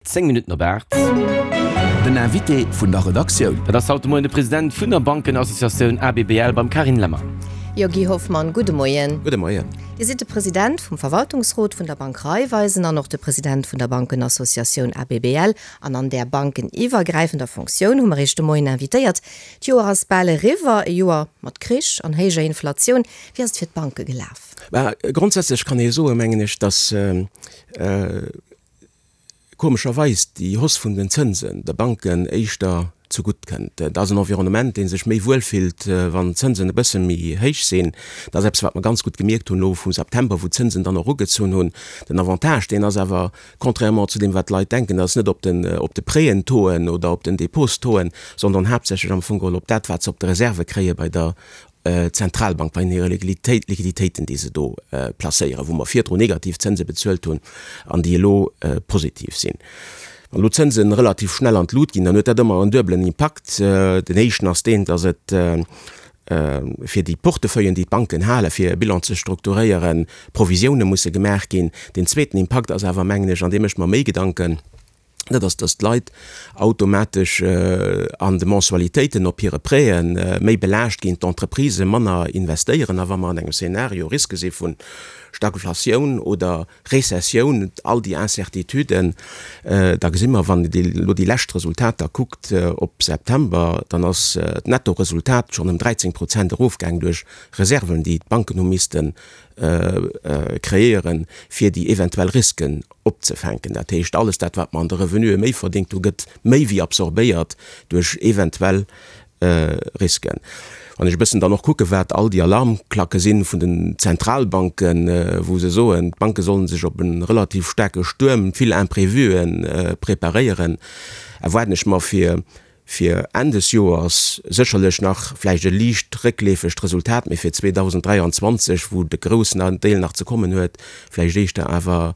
10 Minutten op 8. Den Invité vun der Redaktioun. Dat ass haut de Moien de President vun der Bankenassociatioun ABBL beim Carine Lemmer. Jo, Guy Hoffmann, gudde Moien. Gudde Moien. Dir sidd de President vum Verwaltungsrot vun der Bank Raiffeisen an och de President vun der Bankenassociatioun ABBL. An an där bankeniwwergräifender Fonctioun hu mer Iech de Moien invitéiert. D'Joer ass bal eriwwer, e Joer mat Krich an héijer Inflatioun. Wéi ass et fir d'Banke gelaf? Bah, grondsätzlech kann ee soen, mengen ech, datt komescherweis déi Hausse vun den Zënsen de Banken éischter zegutt kënnt. Et ass en Environnement, dee sech méi wuel fillt, wann d'Zënsen e bësse méi héich sinn. Dat ass eppes, wat mer ganz gutt gemierkt hunn elo vum September, wou d'Zënsen dann och ugezunn hunn. Den Avantage, deen ass awer, contrairement zu deem, wat d'Leit denken, dat ass net op den, op de Prêtentauxen oder op den Dépôtstauxen, sondern haaptsächlech am Fong geholl op dat, wat se op de Reserve kréie bei der Zentralbank bei hire Liquiditéiten, déi se do placéieren, wou mer virdru negativ Zënse bezuelt hunn an déi elo positiv sinn. Wann elo d'Zënse relativ schnell an d'Lut ginn, dann huet dat ëmmer en duebelen Impakt. Den éischten ass deen, datt et fir déi Portefeuillen, déi d'Banken halen, fir e Bilan ze strukturéieren, Provisioune musse gemaach ginn. Deen zweeten Impakt ass awer, mengen ech, an dee mécht mer méi Gedanken, dat ass, dass d'Leit automatesch an de Mensualitéiten op hire Prêtë méi belaascht ginn, d'Entreprisë manner investéieren. A wa mer an engem Szenario Riske si vu Stagflatioun oder Rezessioun, all déi Incertituden, da gesi mer, wann een elo déi lescht Resultater kuckt op September, dann ass d'Nettoresultat schonn ëm 13 Prozent erofgaang duerch Reserven, déi d'Banken hu misste kreéieren, fir déi eventuell Risken opzefänken. Dat heescht, alles dat, wat mer an de Revenuë méi verdéngt hu, gëtt méi wéi absorbéiert duerch eventuell Risken. Wann ech e bëssen dann och kucke wat all déi Alarmklacke si vun den Zentralbanken, wou se soen, d'Banke sollen sech op e relativ staarke Stuerm, vill Imprévuen preparéieren, erwaarden ech mer fir fir Enn des Joers sécherlech nach vläicht e liicht réckleefegt Resultat, mee fir 2023, wou de groussen Deel nach ze kommen huet, vläicht éischter awer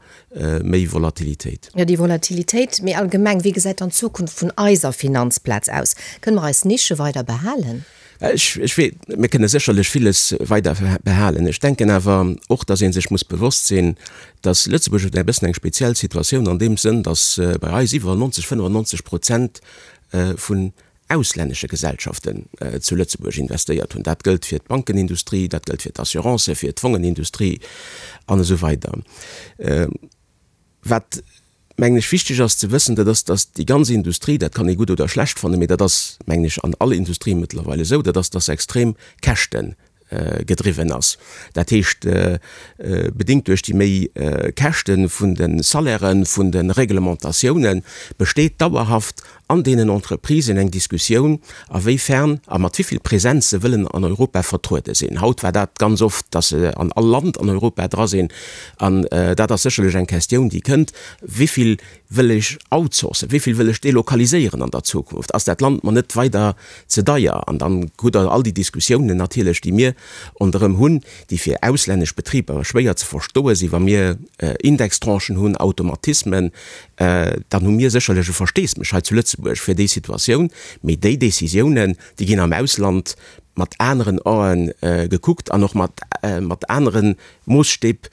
méi Volatilitéit. Jo, déi Volatilitéit. Mee allgemeng, wéi gesäit dann d'Zukunft vun eiser Finanzplaz aus? Kënne mer eis Nische weider behalen? Ech, ech wee, mir kënne sécherlech villes weider behalen. Ech denken awer och, dass ee sech muss bewosst sinn, dass Lëtzebuerg huet e bëssen eng speziell Situatioun an deem Sënn, dass bei eis iwwer 90, 95 Prozent vun auslännesche Gesellschaften zu Lëtzebuerg investéiert hunn. Dat gëllt fir d'Bankenindustrie, dat gëllt fir d'Assurancen, fir d'Fongenindustrie an esou weider. Wat, mengen ech, wichteg ass ze wëssen, dat ass, dass déi ganz Industrie, dat kann ee gutt oder schlecht fannen, mee dat ass, mengen ech, an all Industrie mëttlerweil esou, dat ass, dass se extrem Käschte gedriwwen ass. Dat heescht, bedéngt duerch déi méi Käschte vun de Salairen, vun de Reglementatiounen, besteet dauerhaft an deenen Entreprisen eng Diskussioun, a wéi fern a mat wéi vill Präsenz se wëllen an Europa vertruede sinn. Haut war dat ganz oft, dass se an all Land an Europa dra sinn. An dat ass sécherlech eng Questioun, déi kënnt, Wéi vill wëll ech outsourcen, wéi vill wëll ech delokaliséieren an der Zukunft? Ass dat Land mer net weider ze deier? An dann hutt Der all déi Diskussiounen natierlech, déi mir ronderëm hunn, déi fir auslännesch Betriber schwéier ze verstoe sinn, wa mir Indextranchen hunn, Automatismen, dann hu mir sécherlech e Versteesmech hei zu Lëtzebuerg fir déi Situatioun, mee déi Décisiounen, déi ginn am Ausland mat aneren Ae gekuckt an och mat anere Moosstäb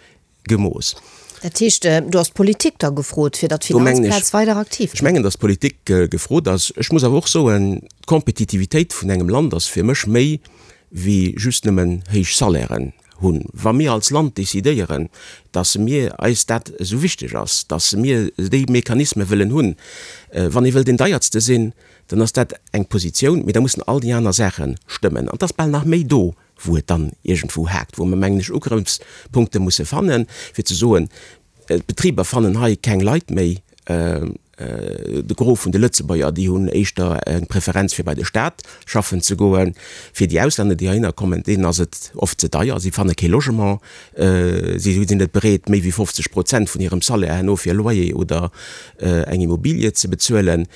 gemooss. Dat heescht, do ass d'Politik da gefrot, fir datt d'Finanzplaz weider aktiv bleift? Ech mengen, datt d'Politik gefrot ass. Ech muss awer och soen, d'Kompetitivitéit vun engem Land ass fir mech méi wéi just nëmmen héich Salairen hunn. Wa mir als Land decidéieren, dass mir eis dat esou wichteg ass, dass mir déi Mechanisme wëllen hunn, wann ee wëll deen Deiertste sinn, dann ass dat eng Positioun, mee da mussen all déi aner Saache stëmmen. An et ass bal nach méi do, wou et dann iergendwou haakt, wou mer, mengen ech, Ugrëffspunkte musse fannen, fir ze soen, D'Betriber fannen hei keng Leit méi. De Gros vun de Lëtzebuerger, déi hunn éischter eng Preferenz fir bei de Staat schaffen ze goen. Fir déi Auslänner, déi heihinner kommen, deenen ass et oft ze deier. Si fanne kee Logement. Si sinn net bereet, méi wéi 50 Prozent vun hirem Salaire herno fir e Loyer oder eng Immobilie ze bezuelen.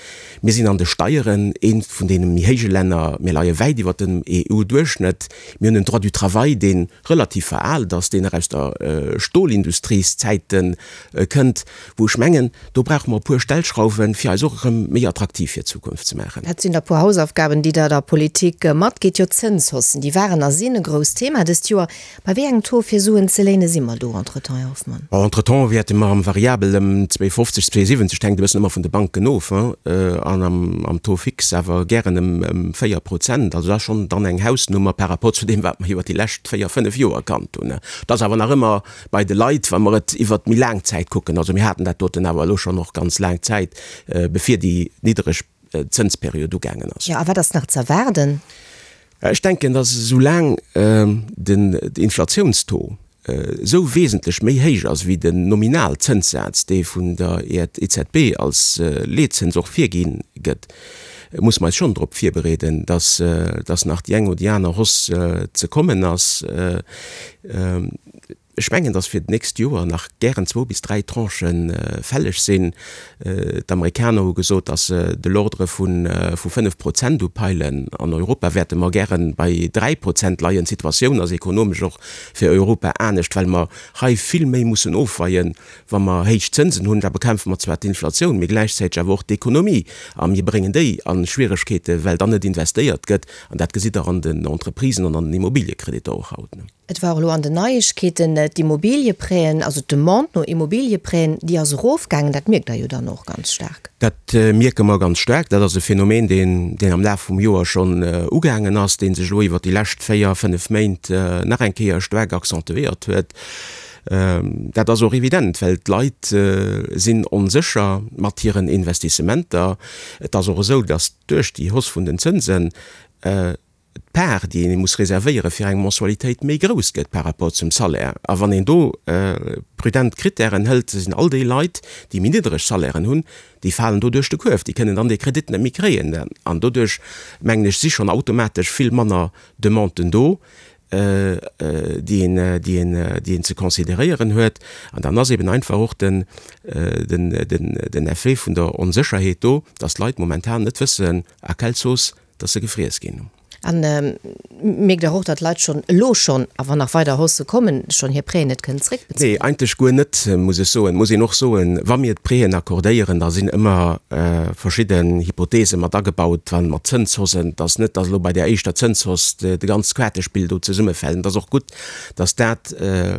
Mir sinn an de Steieren eent vun deene méi héije Länner. Mir leie wäit iwwer dem EU-Duerchschnëtt. Mir hunn en Droit du travail, dee relativ veraalt ass, deen nach aus der Stolindustrieszäite kënnt, wou ech mengen, do brauche mer e puer Stellschrauwen. schrauwen, fir eis och erëm méi attraktiv fir d'Zukunft ze maachen. Dat sinn der puer Hausaufgaben, déi Der der Politik matgitt. Jo, d'Zënshaussen, déi waren a sinn e grousst Thema dëst Joer. Bei wéi engem Taux fir Suen ze léine si mer do entretemps, Här Hoffmann? Bon, entretemps wäerte mer am Variabel ëm 2,50, 2,70, et hänkt e bëssen ëmmer vun de Banken of, an am Taux fixe awer gären ëm 4 Prozent. Also dat ass schonn dann eng Hausnummer par rapport zu deem, wat mer iwwert déi lescht véier, fënnef Joer kannt hunn. Dat ass awer nach ëmmer bei de Leit, wa mer et iwwert méi laang Zäit kucken. Also mir haten dat doten awer elo schonn och ganz laang Zäit, bevir déi niddereg Zënsperiod ugaangen ass. Jo, a wat ass nach z'erwaarden? Ech denken, datt esou laang den Inflatiounstaux esou wesentlech méi héich ass wéi den Nominalzënssaz, dee vun der EZB als Leetzëns och virgi gëtt, musse mer eis schonn drop virbereeden, datt datt nach déi eng oder déi aner Hausse ze kommen ass. Ech mengen, datt fir d'nächst Joer nach gären zwou bis dräi Tranchë fälleg sinn. D'Amerikaner hu gesot, datt se de l'ordre vu 5 Prozent upeilen. An Europa wäerte mer gäre bei 3 Prozent leien. D'Situatioun ass ekonomesch och fir Europa anescht, well mer hei vill méi mussen ofweien, wa mer héich Zënsen hunn. Da bekämpfe mer zwar d'Inflatioun, mee gläichzäiteg awer och d'Ekonomie a mir bréngen déi a Schwieregkeete, well dann net investéiert gëtt. An dat gesitt Der an den Entreprisen an an den Immobiliekreditter och haut. Et war och elo an den Neiegkeeten, d'Immobiliëprêten, also d'Demande no Immobiliëprêten, déi ass erofgaangen. Dat mierkt Der jo dann och ganz staark. Dat mierke mer ganz staark. Dat ass e Phänomen, deen, deen am Laf vum Joer schonn ugaangen ass, dee sech elo iwwert déi lescht véier, fënnef Méint nach eng Kéier staark accentuéiert huet. Dat ass och evident, well d'Leit sinn onsécher mat hiren Investissementer. Et ass och esou, datt duerch déi Hausse vun den Zënsen d'Part, déi ee muss reservéiere fir eng Mensualitéit, méi grouss gëtt par rapport zum Salaire. A wann een do prudent Krittären hëlt, sinn all déi Leit, déi méi niddereg Salairen hunn, déi falen do duerch de Kuerf, déi kënnen dann dee Kredit net méi kréien. An doduerch, mengen ech, si schonn automatesch vill manner Demanden do, déi een, déi een, déi een ze consideréieren huet. An dann ass eben einfach och den, den, den, den Effet vun der Onsécherheet do, dass d'Leit momentan net wëssen, à quelle sauce dass se gefriess ginn. A mierkt Der och, datt d'Leit schonn elo schonn, a wann nach weider Haussë kommen, schonn hir Prêten net kënnen zréckbezuelen? Nee, eigentlech guer net, muss ech soen. Et muss een och soen, wa mir d'Prêten accordéieren, da sinn ëmmer verschidden Hypothese mat agebaut, wa mat Zënshaussen, dass net, dass elo bei där éischter Zënshausse de ganzt Quaartespill do zesummefält. Et ass och gutt, dass dat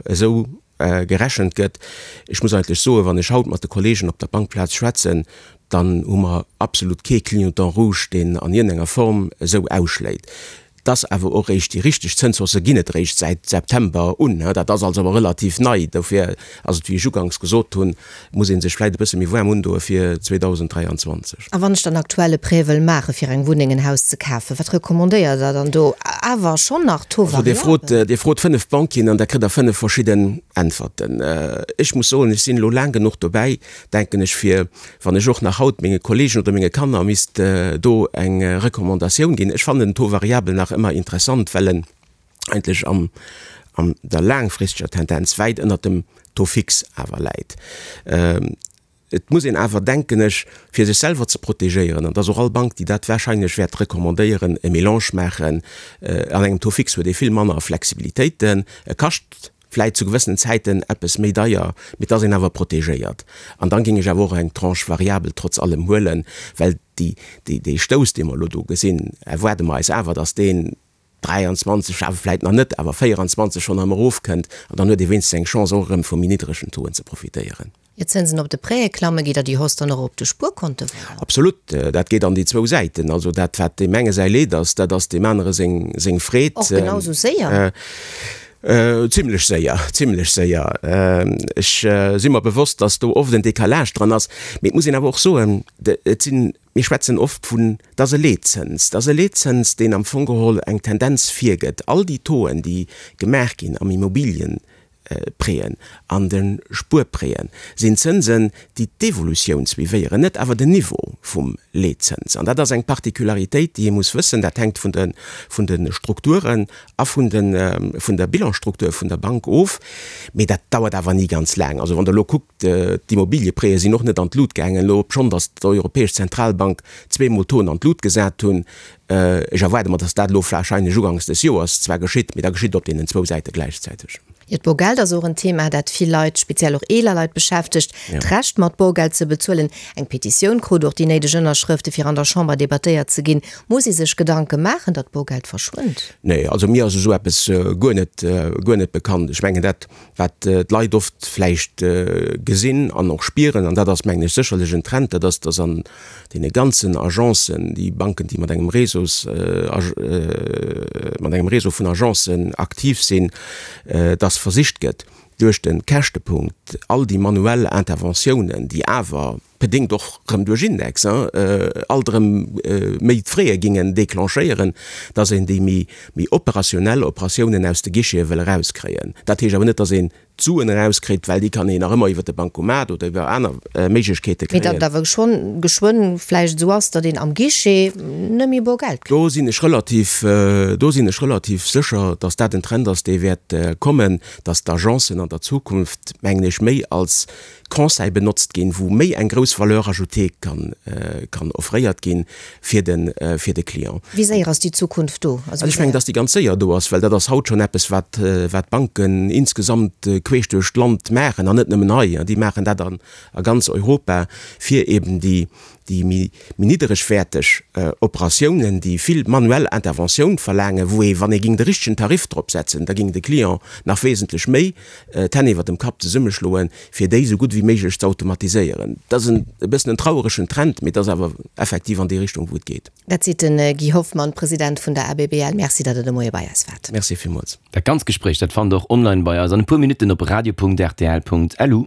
esou gerechent gëtt. Ech muss eigentlech soen, wann ech haut mat de Kollegen op der Bankplaz schwätzen, dann hu mer absolut kee Clignotant rouge, deen an iergendenger Form esou ausschléit. Et ass awer och réischt, déi richteg Zënshausse ginn et réischt säit September un. Dat ass also awer relativ nei. Dofir ass et, wéi ech uganks gesot hunn, muss ee sech vläicht e bësse méi waarm undoe fir 2023. A wann ech dann aktuell e Prêt wëll maache fir eng Wunneng, en Haus ze kafen, wat recommandéiert Der dann do? Awer schonn nach Taux Also Dir frot, variabel? Dir frot 5 Banquieren an da kritt Der 5 verschidden Äntwerten. Ech muss soen, ech sinn elo laang genuch dobäi, denken ech, fir, wann ech och nach haut menge Kollegen oder menge Kanner misst do eng Recommandatioun ginn, ech fannen den Taux variabel nach ëmmer interessant, well en eigentlech am, an der laangfristeger Tendenz wäit ënnert dem Taux fixe awer läit. Et muss een awer, denken ech, fir sech selwer ze protegéieren, an et ass och all Bank, déi dat wahrscheinlech wäert recommandéieren, e Mélange maachen. An engem Taux fixe huet ee vill manner Flexibilitéiten, e kascht vläit zu gewëssenen Zäiten eppes méi deier, mee et ass een awer protegéiert. An dann géing ech awer och eng Tranche variabel trotz allem huelen, well déi, déi, dee Stouss, dee mer elo do gesinn, erwaarde mer eis awer, dass deen 23, awer vläit nach net, awer 24 schonn erëm erofkënnt an dann huet ee wéinstens eng Chance och erëm vu méi niddregen Tauxen ze profitéieren. Ier d'Zënsen op de Prêtë klammen, geet der déi Hausse dann och op de Spuerkonte weider? Absolut, dat geet an déi zwou Säiten. Also dat wat deem enge säi Leed ass, dat ass deem anere seng seng Freed. Och genau esou séier? Zimlech séier, zimlech séier. Ech si mer bewosst, datt do oft en Décalage dran ass, mee et muss een awer och soen, et sinn, mir schwätzen oft vun, et ass e Leetzëns, et ass e Leetzëns, deen am Fong geholl eng Tendenz virgëtt. All déi Tauxen, déi gemaach ginn am Immobiliëprêten, an de Spuerprêten, sinn Zënsen, déi d'Evolutioun suivéieren, net awer den Niveau vum Leetzëns. An dat ass eng Particularitéit, déi ee muss wëssen. Dat hänkt vun de, vun de Strukturen a vun de, vun der Bilansstruktur vun der Bank of. Mee dat dauert awer ni ganz laang. Also wann Der elo kuckt, D'Immobiliëprêtë sinn och net an d'Lut gaangen, elo obschonn datt d'Europäesch Zentralbank zweemol d'Toen an d'Lut gesat hunn. Ech erwaarde mer, datt dat elo warscheinlech uganks des Joers zwar geschitt, mee da geschitt et op deenen zwou Säite gläichzäiteg. Jo, d'Borgeld ass och en Thema, dat vill Leit, speziell och eeler Leit beschäftegt. D'Recht mat Borgeld ze bezuelen. Eng Petitioun krut och déi néideg Ënnerschrëfte fir an der Chamber debattéiert ze ginn. Muss ee sech Gedanke maachen, datt Borgeld verschwënnt? Nee, also mir ass esou eppes guer net, guer net bekannt. Ech mengen dat, wat d'Leit oft vläicht gesinn an och spieren, an dat ass mengen ech sécherlech en Trend, dat ass, datt an deene ganzen Agencen, déi Banken, déi mat engem Réseaus, mat engem Réseau vun Agencen aktiv sinn, datt versicht gëtt, duerch de Käschtepunkt all déi manuell Interventiounen, déi awer bedéngt och rëm duerch Index, alt erëm méi d'Fraie gingen déclenchéieren, dass een déi méi méi operationell Operatiounen aus de Guichete wëll erauskréien. Dat heescht awer net, dass een d'Suen erauskritt, well déi kann een nach ëmmer iwwer de Bancomat oder iwwer aner Méiglechkeete kréien. Mee datt et awer schonn geschwënn vläicht esou ass, datt een am Guichet net méi bor Geld kritt. Do sinn ech relativ, do sinn ech relativ sécher, dass dat en Trend ass, dee wäert kommen, dass d'Agencen an der Zukunft, mengen ech, méi als Conseil benotzt ginn, wou méi eng grouss Valeur ajoutée kann, kann offréiert ginn fir de, fir de Client. Wéi séier ass déi Zukunft do? Also ech mengen, dass déi ganz séier do ass, well dat ass haut schonn eppes, wat, wat d'Banken insgesamt queesch duerch d'Land maachen, an net nëmmen hei, déi maachen dat an a ganz Europa, fir eben déi, déi méi nidderegwäerteg Operatiounen, déi vill manuell Interventioun verlaangen, wou ee, wann ee ging de richtegen Tarif drop setzen, da ging de Client nach wesentlech méi d'Hänn iwwer dem Kapp zesummeschloen, fir déi esou gutt wéi méiglech ze automatiséieren. Dat ass e bëssen en traueregen Trend, mee et ass awer effektiv an déi Richtung, wou et geet. Dat seet de Guy Hoffmann, President vun der ABBL. Merci, datt Der de Moie bei eis waart. Merci villmools. Dat ganzt Gespréich, dat fannt Der och online bei eis an e puer Minutten op radio.rtl.lu.